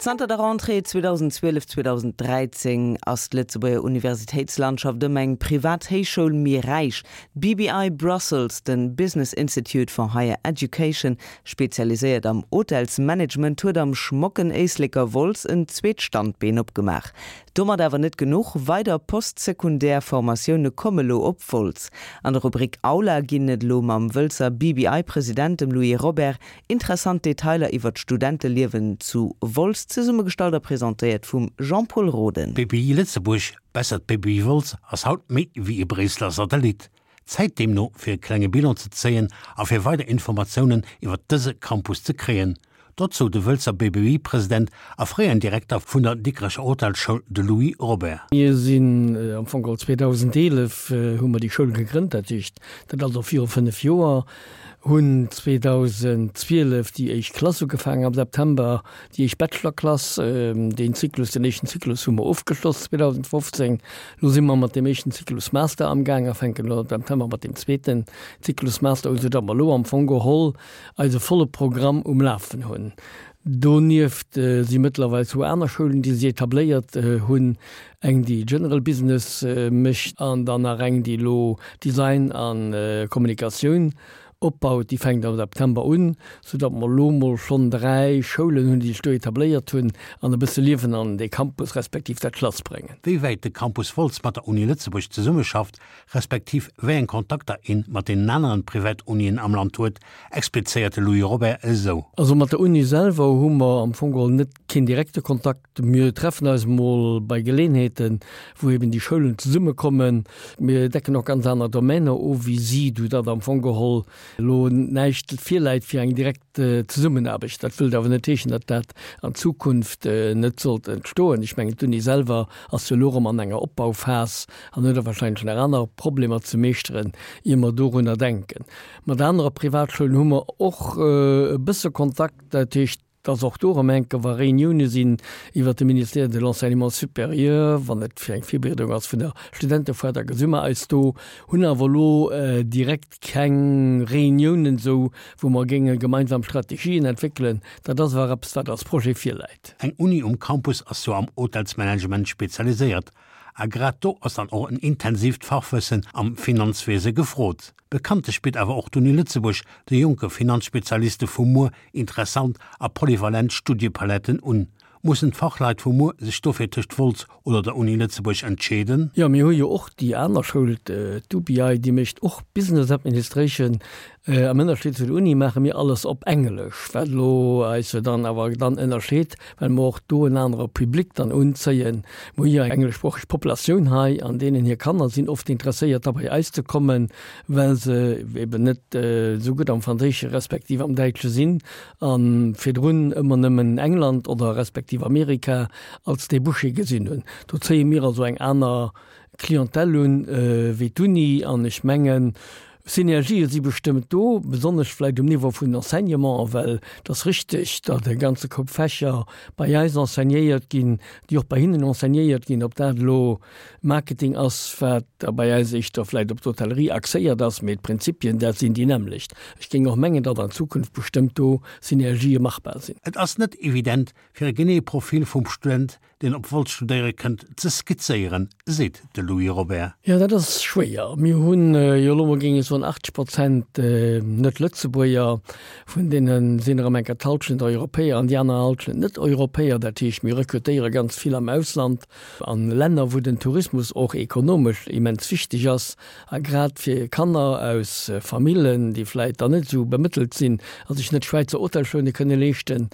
Zanter der Rentrée 2012, 2013 ass d'Lëtzebuerger Universitéitslandschaft ëm eng privat Héichschoul méi räich. D'BBI Brussels, de Business Institute for Higher Education, spezialiséiert am Hotelsmanagement, huet am schmocken Éisleker Wolz en zweet Standbeen opgemaach. Domat awer net genuch, weider postsekundär Formatioune komme lo op Wolz. An der Rubrik Aula ginn et elo mam Wëlzer BBI-President, dem Louis Robert, Interessant Detailer iwwer d'Studenteliewen zu Wolz, zesummegestallt a presentéiert vum Jean-Pol Roden. D'BBI Lëtzebuerg, besser d'BBI Wolz, ass haut méi wéi e Bréisseler Satellit. Zäit deemno fir e klenge Bilan ze zéien a fir weider Informatiounen iwwer dëse Campus ze kréien. Dozou de Wëlzer BBI-President a fréieren Direkter vun der Dikrecher Hotelsschoul, de Louis Robert. Mir sinn am Fong geholl 2011 hu mer déi Schoul gegrënnt, dat heescht dat ass och viru 5 Joer. Hunn 2012 déi éischt Klass ugefaangen am September, déi éischt Bachelorklass. Deen Zyklus, den éischten Zyklus hu mer ofgeschloss 2015. Elo si mer mat deem éischten Zyklus Master amgaang a fänken elo am September mat deem zweeten Zyklus Master un, soudatt mer elo am Fong geholl eise volle Programm um Lafen hunn. Donieft si mëttlerweil zwou aner Schoulen, déi sech etabléiert hunn, eng déi General Business mécht an dann nach eng déi elo Design a Kommunikatioun opbaut. Déi fänkt am September un, soudatt mer elo mol schonn 3 Schoulen hunn, déi sech do etabléiert hunn an e bësse Liewen an dee Campus respektiv dat Schlass bréngen. Wéi wäit de Campus Wolz mat der Uni Lëtzebuerg zesummeschafft, respektiv wéi eng Kontakter een mat deenen aneren Privatunien am Land huet, explizéiert de Louis Robert esou. Also mat der Uni selwer hu mer am Fong geholl net keen direkte Kontakt. Mir treffen eis emol bei Geleenheeten, wou eben déi Schoulen zesummekommen. Mir decken och ganz aner Domainer of wéi si, sou datt am Fong geholl elo näischt virläit fir eng direkt Zesummenaarbecht. Dat wëllt awer net heeschen, datt dat an Zukunft net sollt entstoen. Ech mengen, d'Uni selwer ass jo elo erëm an enger Opbauphas an huet och wahrscheinlech nach aner Problemer ze meeschteren, ier mer dorunner denken. Mat anere Privatschoulen hu mer och e bësse Kontakt, dat heescht, dass och do erëm enke wa Reunioune sinn iwwert de Ministère de l'Enseignement supérieur, wann et fir eng Virbereedung ass vun der Studentefoire, da gesi mer eis do, hunn awer elo direkt keng Reuniounen esou, wou mer géinge gemeinsam Strategien entwéckelen. Dat ass awer eppes, wat als Projet virläit. Eng Uni um Campus ass jo am Hotelsmanagement spezialiséiert. A grad do ass dann och en intensiivt Fachwëssen am Finanzwiese gefrot. Bekanntlech bitt awer och d'Uni Lëtzebuerg de jonke Finanzspezialiste vu muer interessant a polyvalent Studiepaletten un. Mussen d'Fachleit vu muer sech dofir tëscht Wolz oder der Uni Lëtzebuerg entscheeden? Jo, mir hu jo och déi aner Schoul, d'UBI, déi mécht och Business Administration. Am Ënnerscheed zu der Uni maache mir alles op Englesch, wat elo eis jo dann awer dann ënnerscheet, well mer och do en anere Public dann unzéien. Mer hu jo eng engleschsproocheg Populatioun hei an deenen hir Kanner sinn oft interesséiert da bei eis ze kommen, well se eben net esou gutt am Franséische respektiv am Däitsche sinn a virdrun ëmmer nëmmen England oder respektiv Amerika als Débouché gesinn hunn. Do zéie mir also eng aner Clientèle un wéi d'Uni an ech mengen, Synergië si bestëmmt do, besonnesch vläicht um Niveau vun den Enseignementen, well et ass richteg, datt e ganze Koup Fächer bei eis enseignéiert ginn, déi och bei hinnen enseignéiert ginn, ob dat elo Marketing ass, wat da bei eis éischter vläicht op d'Hotellerie axéiert ass, mee d'Prinzipien, dat sinn déi nämmlecht. Ech géing och mengen, datt an Zukunft bestëmmt do Synergië machbar sinn. Et ass net evident, fir e geneeë Profil vum Student deen op Wolz studéiere kënnt, ze skizzéieren, seet de Louis Robert. Jo, dat ass schwéier. Mir hunn jo elo mol, géing ech soen, 80 Prozent Net-Lëtzebuerger, vun deene sinn erëm enker d'Hallschent Europäer an déi aner Hallschent Net-Europäer. Dat heescht, mir rekrutéiere ganz vill am Ausland, an Länner, wou den Tourismus och ekonomesch immens wichteg ass. A grad fir Kanner aus Famillen, déi vläit dann net esou bemëttelt sinn a sech net Schwäizer Hotelschoune kënne leeschten,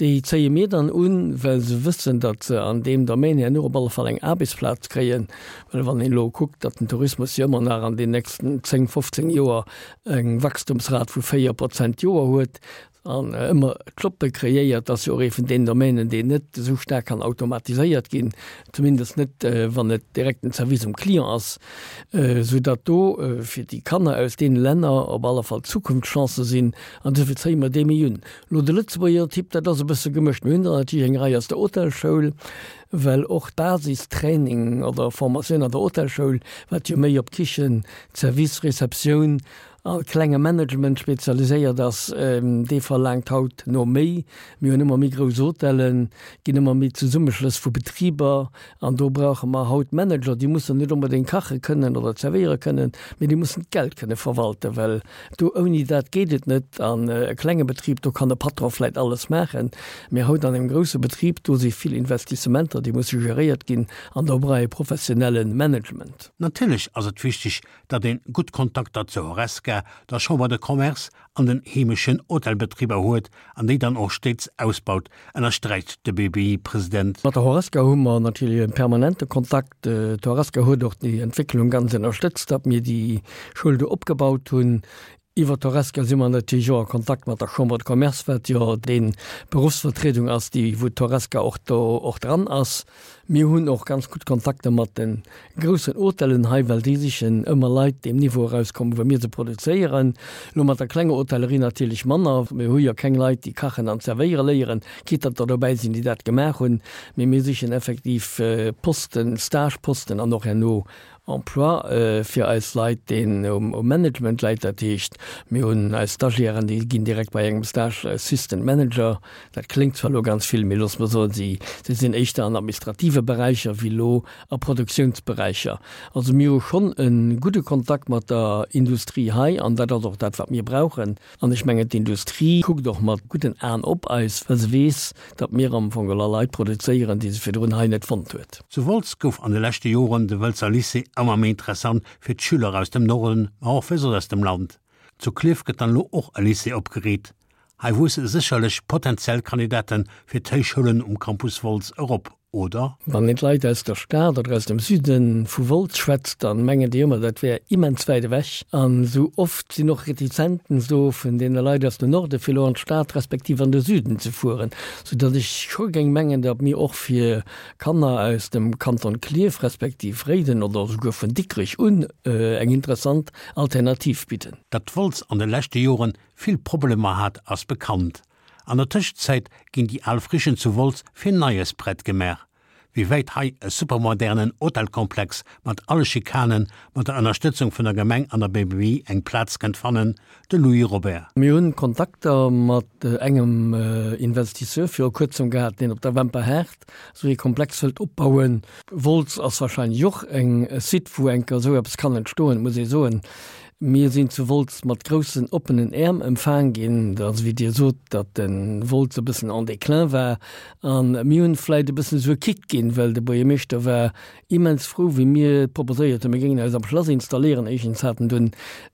déi zéie mir dann un, well se wëssen, datt se an deem Domaine herno op alle Fall eng Aarbechtsplaz kréien. Well wann een elo kuckt, datt den Tourismus jo ëmmer nach an den nächsten 10, 15 Joer eng Wachstumsrat vu 4 Prozent d'Joer huet, An ëmmer Jobbe kreéiert, ass jo och ee vun deenen Domänen, deen net esou staark kann automatiséiert ginn, zumindest net, wann et direkt den Service um Client ass, soudatt do fir déi Kanner aus deene Länner op alle Fall Zukunftschancë sinn. An dofir zéie mer dee méi un. Elo de Lëtzebuerger Typ, dat ass e bësse gemëscht. Mir hunn der natierlech eng Rei aus der Hotelschoul, well och d'Basistraining oder Formatioun an der Hotelschoul, wat jo méi op Kichen, Service, Receptioun. a klenge Management spezialiséiert ass, dee verlaangt haut no méi. Mir hunn ëmmer méi grouss Hotellen, ginn ëmmer méi Zesummeschlëss vu Betriber an do brauche mer haut Manager, déi mussen net onbedéngt kache kënnen oder zerwéiere kënnen, mee déi mussen d'Geld kënne verwalten, well do ouni dat geet et net. An e klenge Betrib, do kann de Patron vläicht alles maachen, mee haut an engem grousse Betrib, do si vill Investissementer, déi musse geréiert ginn an do brauch ee professionelle Management. Natierlech ass et wichteg, datt een gutt Kontakter zur Horesca, der Chambre de Commerce an den heemeschen Hotelbetriber huet an déi dann och stéits ausbaut, ënnersträicht de BBI-President. Mat der Horesca hu mer natierlech e permanente Kontakt. D'Horesca huet och déi Entwécklung ganz ënnerstëtzt, datt mir déi Schoul do opgebaut hunn. Iwwer d'Horesca si mer natierlech och a Kontakt mat der Chambre de Commerce, wat jo déi Beruffsvertriedung ass, déi wou d'Horesca och do och dran ass. Mir hunn och ganz gutt Kontakter mat de groussen Hotellen hei, well déi sichen ëmmer Leit, déi um Niveau erauskommen, wou mir se produzéieren. Elo mat der klenger Hotellerie natierlech manner. Mir hu jo keng Leit, déi kachen an zerwéiere léieren, quitte datt der dobäi sinn, déi dat gemaach hunn. Mee mir sichen effektiv Posten, Stageposten an och herno Emploi fir eis Leit, deen um Management läit. Dat heescht, mir hunn eis Stagiairen, déi ginn direkt bei engem Stage Assistant Manager. Dat kléngt zwar elo ganz vill, mee loosse mer soen, si sinn éischter an administrative Beräicher wéi elo a Produktiounsberäicher. Also mir hu schonn e gudde Kontakt mat der Industrie hei an dat ass och dat, wat mir brauchen. An ech mengen, d'Industrie kuckt och mat gudden Aen op eis, well se weess, datt mir am Fong geholl Leit produzéieren, déi se virdrun hei net fonnt huet. Zu Wolz gouf an de leschte Joren de Wëlzer Lycée ëmmer méi interessant fir d'Schüler aus dem Norden, ma och fir soss aus dem Land. Zu Klierf gëtt dann elo och e Lycée opgeriit. Hei wuesse sécherlech potentiell Kandidate fir d'Héichschoulen um Campus Wolz erop, oder? Wann een d'Leit aus der Stad oder aus dem Süde vu Wolz schwätzt, dann mengen déi ëmmer, dat wär immens wäit ewech. An esou oft sinn och Retizenzen do vun deene Leit aus dem Norde fir elo an d'Stad respektiv an de Süden ze fueren, soudatt ech scho géing mengen, datt mir och fir Kanner aus dem Kanton Klierf respektiv Réiden oder esouguer vun Dikrech un eng interessant Alternativ bidden. Datt Wolz an de leschte Joren vill Problemer hat, ass bekannt. An der Tëschenzäit ginn déi al Frichen zu Wolz fir Neies prett gemaach. Wéi wäit hei e supermodernen Hotelkomplex mat alle Schikanen, mat der Ënnerstëtzung vun der Gemeng an der BBI eng Plaz kënnt fannen, de Louis Robert. Mir hunn Kontakter mat engem Investisseur viru kuerzem gehat, deen op der Wemperhaart esou ee Komplex wëllt opbauen. Wolz ass wahrscheinlech och e Site, wou enker esou eppes kann entstoen, muss ee soen. Mir sinn zu Wolz mat groussen oppenen Äerm empfaang ginn. Et ass wéi Dir sot, datt de Wolz e bëssen en déclin war. A mir hunn vläicht e bëssen esou e Kick ginn, well de Buergermeeschter war immens frou, wéi mir proposéiert hunn, mir géingen eis am Schlass installéieren. Éischtens hat en dunn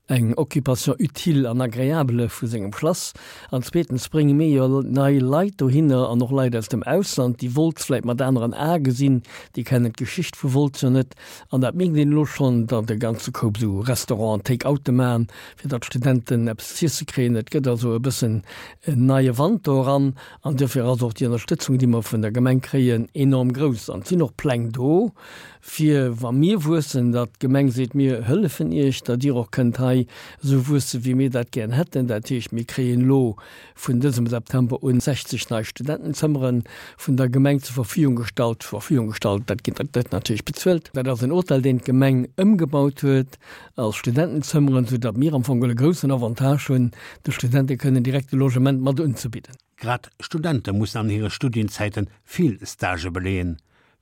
eng Occupation utile an agréable vu sengem Schlass an zweetens brénge mir jo nei Leit dohinner an och Leit aus dem Ausland, déi Wolz vläicht mat aneren Ae gesinn, déi kennen d'Geschicht vu Wolz jo net. An dat mierkt een elo schonn, datt e ganze Koup esou Restauranten Take-oute maachen, fir datt d'Studenten eppes z'iesse kréien. Et gëtt also e bëssen en neie Wand do eran. An duerfir ass och déi Ënnerstëtzung, déi mer vun der Gemeng kréien, enorm grouss. An et sinn och Pläng do, fir wa mir wuessen, datt d'Gemeng seet, mir hëllefen Iech, datt Dir och kënnt hei esou wuesse wéi mir dat gären hätten. Dat heescht, mir kréien elo vun dësem September un 60 nei Studentenzëmmere vun der Gemeng zur Verfügung gestallt. Zur Verfügung gestallt, dat ginn, dat gëtt natierlech bezuelt. Dat ass en Hotel, deen d'Gemeng ëmgebaut huet als Studentenzëmmeren, sou datt mir am Fong e groussen Avantage hunn, de Studente kënnen direkt e Logement mat unzebidden. Grad Studente mussen an hire Studienzäite vill Stagë beleeën.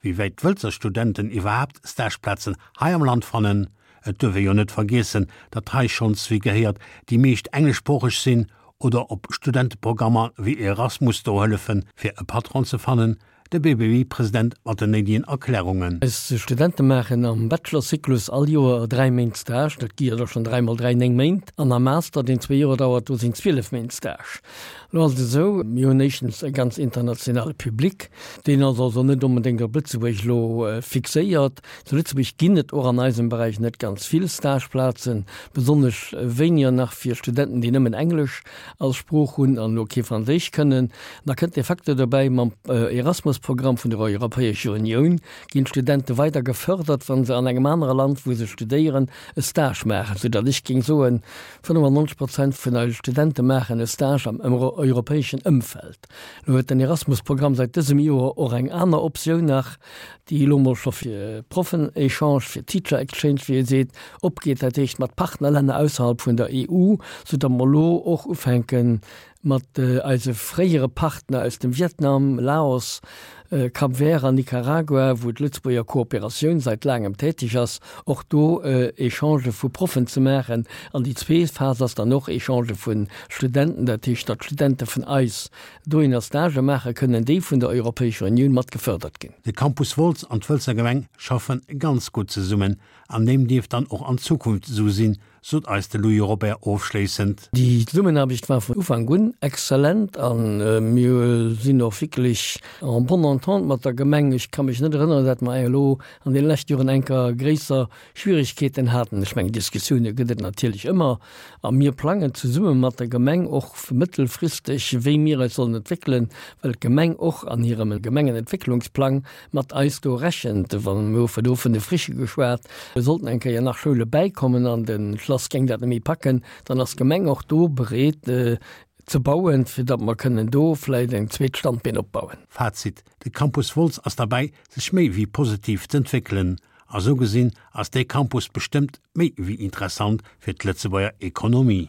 Wéi wäit d'Wëlzer Studenten iwwerhaapt Stageplazen hei am Land fannen? Et duerf ee jo net vergiessen, datt hei schonns wéi gehéiert déi meescht engleschsproocheg sinn, oder ob Studenteprogrammer wéi Erasmus do hëllefen, fir e Patron ze fannen, de BBI-President mat den néidegen Erklärungen. Eis Studente maachen am Bachelorzyklus all Joer 3 Méint Stage, dat gi jo da schonn 3 mol 3, 9 Méint, an am Master, deen zwee Joer dauert, do sinn 12 Méint Stage. Lo ass et esou, mir hunn éischtens e ganz internationale Public, deen ass also net onbedéngt op Lëtzebuerg elo fixéiert. Zu Lëtzebuerg ginn et och an eisem Beräich net ganz vill Stageplazen, besonnesch wéiniger nach fir Studenten, déi nëmmen Englesch als Sprooch hunn an elo kee Franséisch kënnen. Da kënnt de Facteur dobäi mam Erasmus. Erasmus-Programm vun der Europäescher Unioun ginn d'Studente weider gefërdert, wa se an engem anere Land, wou se studéieren, e Stage maachen, soudatt ech géing soen, 95 Prozent vun eise Studente maachen e Stage am europäeschen Ëmfeld. Elo huet den Erasmus-Programm säit dësem Joer och eng aner Optioun nach, déi elo mol scho fir Proffen-Echange, fir Teacher Exchange, wéi ee seet, opgeet, dat heescht mat Partnerlänner ausserhalb vun der EU, soudatt mer elo och ufänken, mat eise fréiere Partner aus dem Vietnam, Laos, Cap Vert an Nicaragua, wou d'Lëtzebuerger Kooperatioun seit laangem täteg ass, och do Echangë vu Proffen ze maachen. An déi zweet Phas ass dann och Echangë vu Studenten, dat heescht, datt Studente vun eis dohinner Stagë maache kënnen, déi vun der Europäescher Unioun mat gefërdert ginn. De Campus Wolz an d'Wëlzer Gemeng schaffe ganz gutt zesummen an deem dierft dann och an Zukunft esou sinn, sot eis de Louis Robert ofschléissend. Déi Zesummenaarbecht war vun Ufank un exzellent a mir sinn och wierklech en bonne entente mat der Gemeng. Ech ka mech net erënneren, dat mer elo an deene leschte Joren enker gréisser Schwierigkeeten haten. Ech mengen, Diskussioune gëtt et natierlech ëmmer a mir plangen zesumme mat der Gemeng och mëttelfristeg, wéi mir eis sollen entwéckelen, well d'Gemeng och an hirem Gemengenentwécklungsplang mat eis do rechent, wa mir hu do vun de Frichë geschwat, sollten eng Kéier nach Schoule bäikommen an de Schlass géing dat net méi packen, dann ass d'Gemeng och do bereet ze bauen, fir datt mer kënnen do vläicht eng zweet Standbeen opbauen. Fazit, De Campus Wolz ass derbäi, sech méi wéi positiv z'entwéckelen. A sou gesinn ass dee Campus bestëmmt méi wéi interessant fir d'Lëtzebuerger Ekonomie.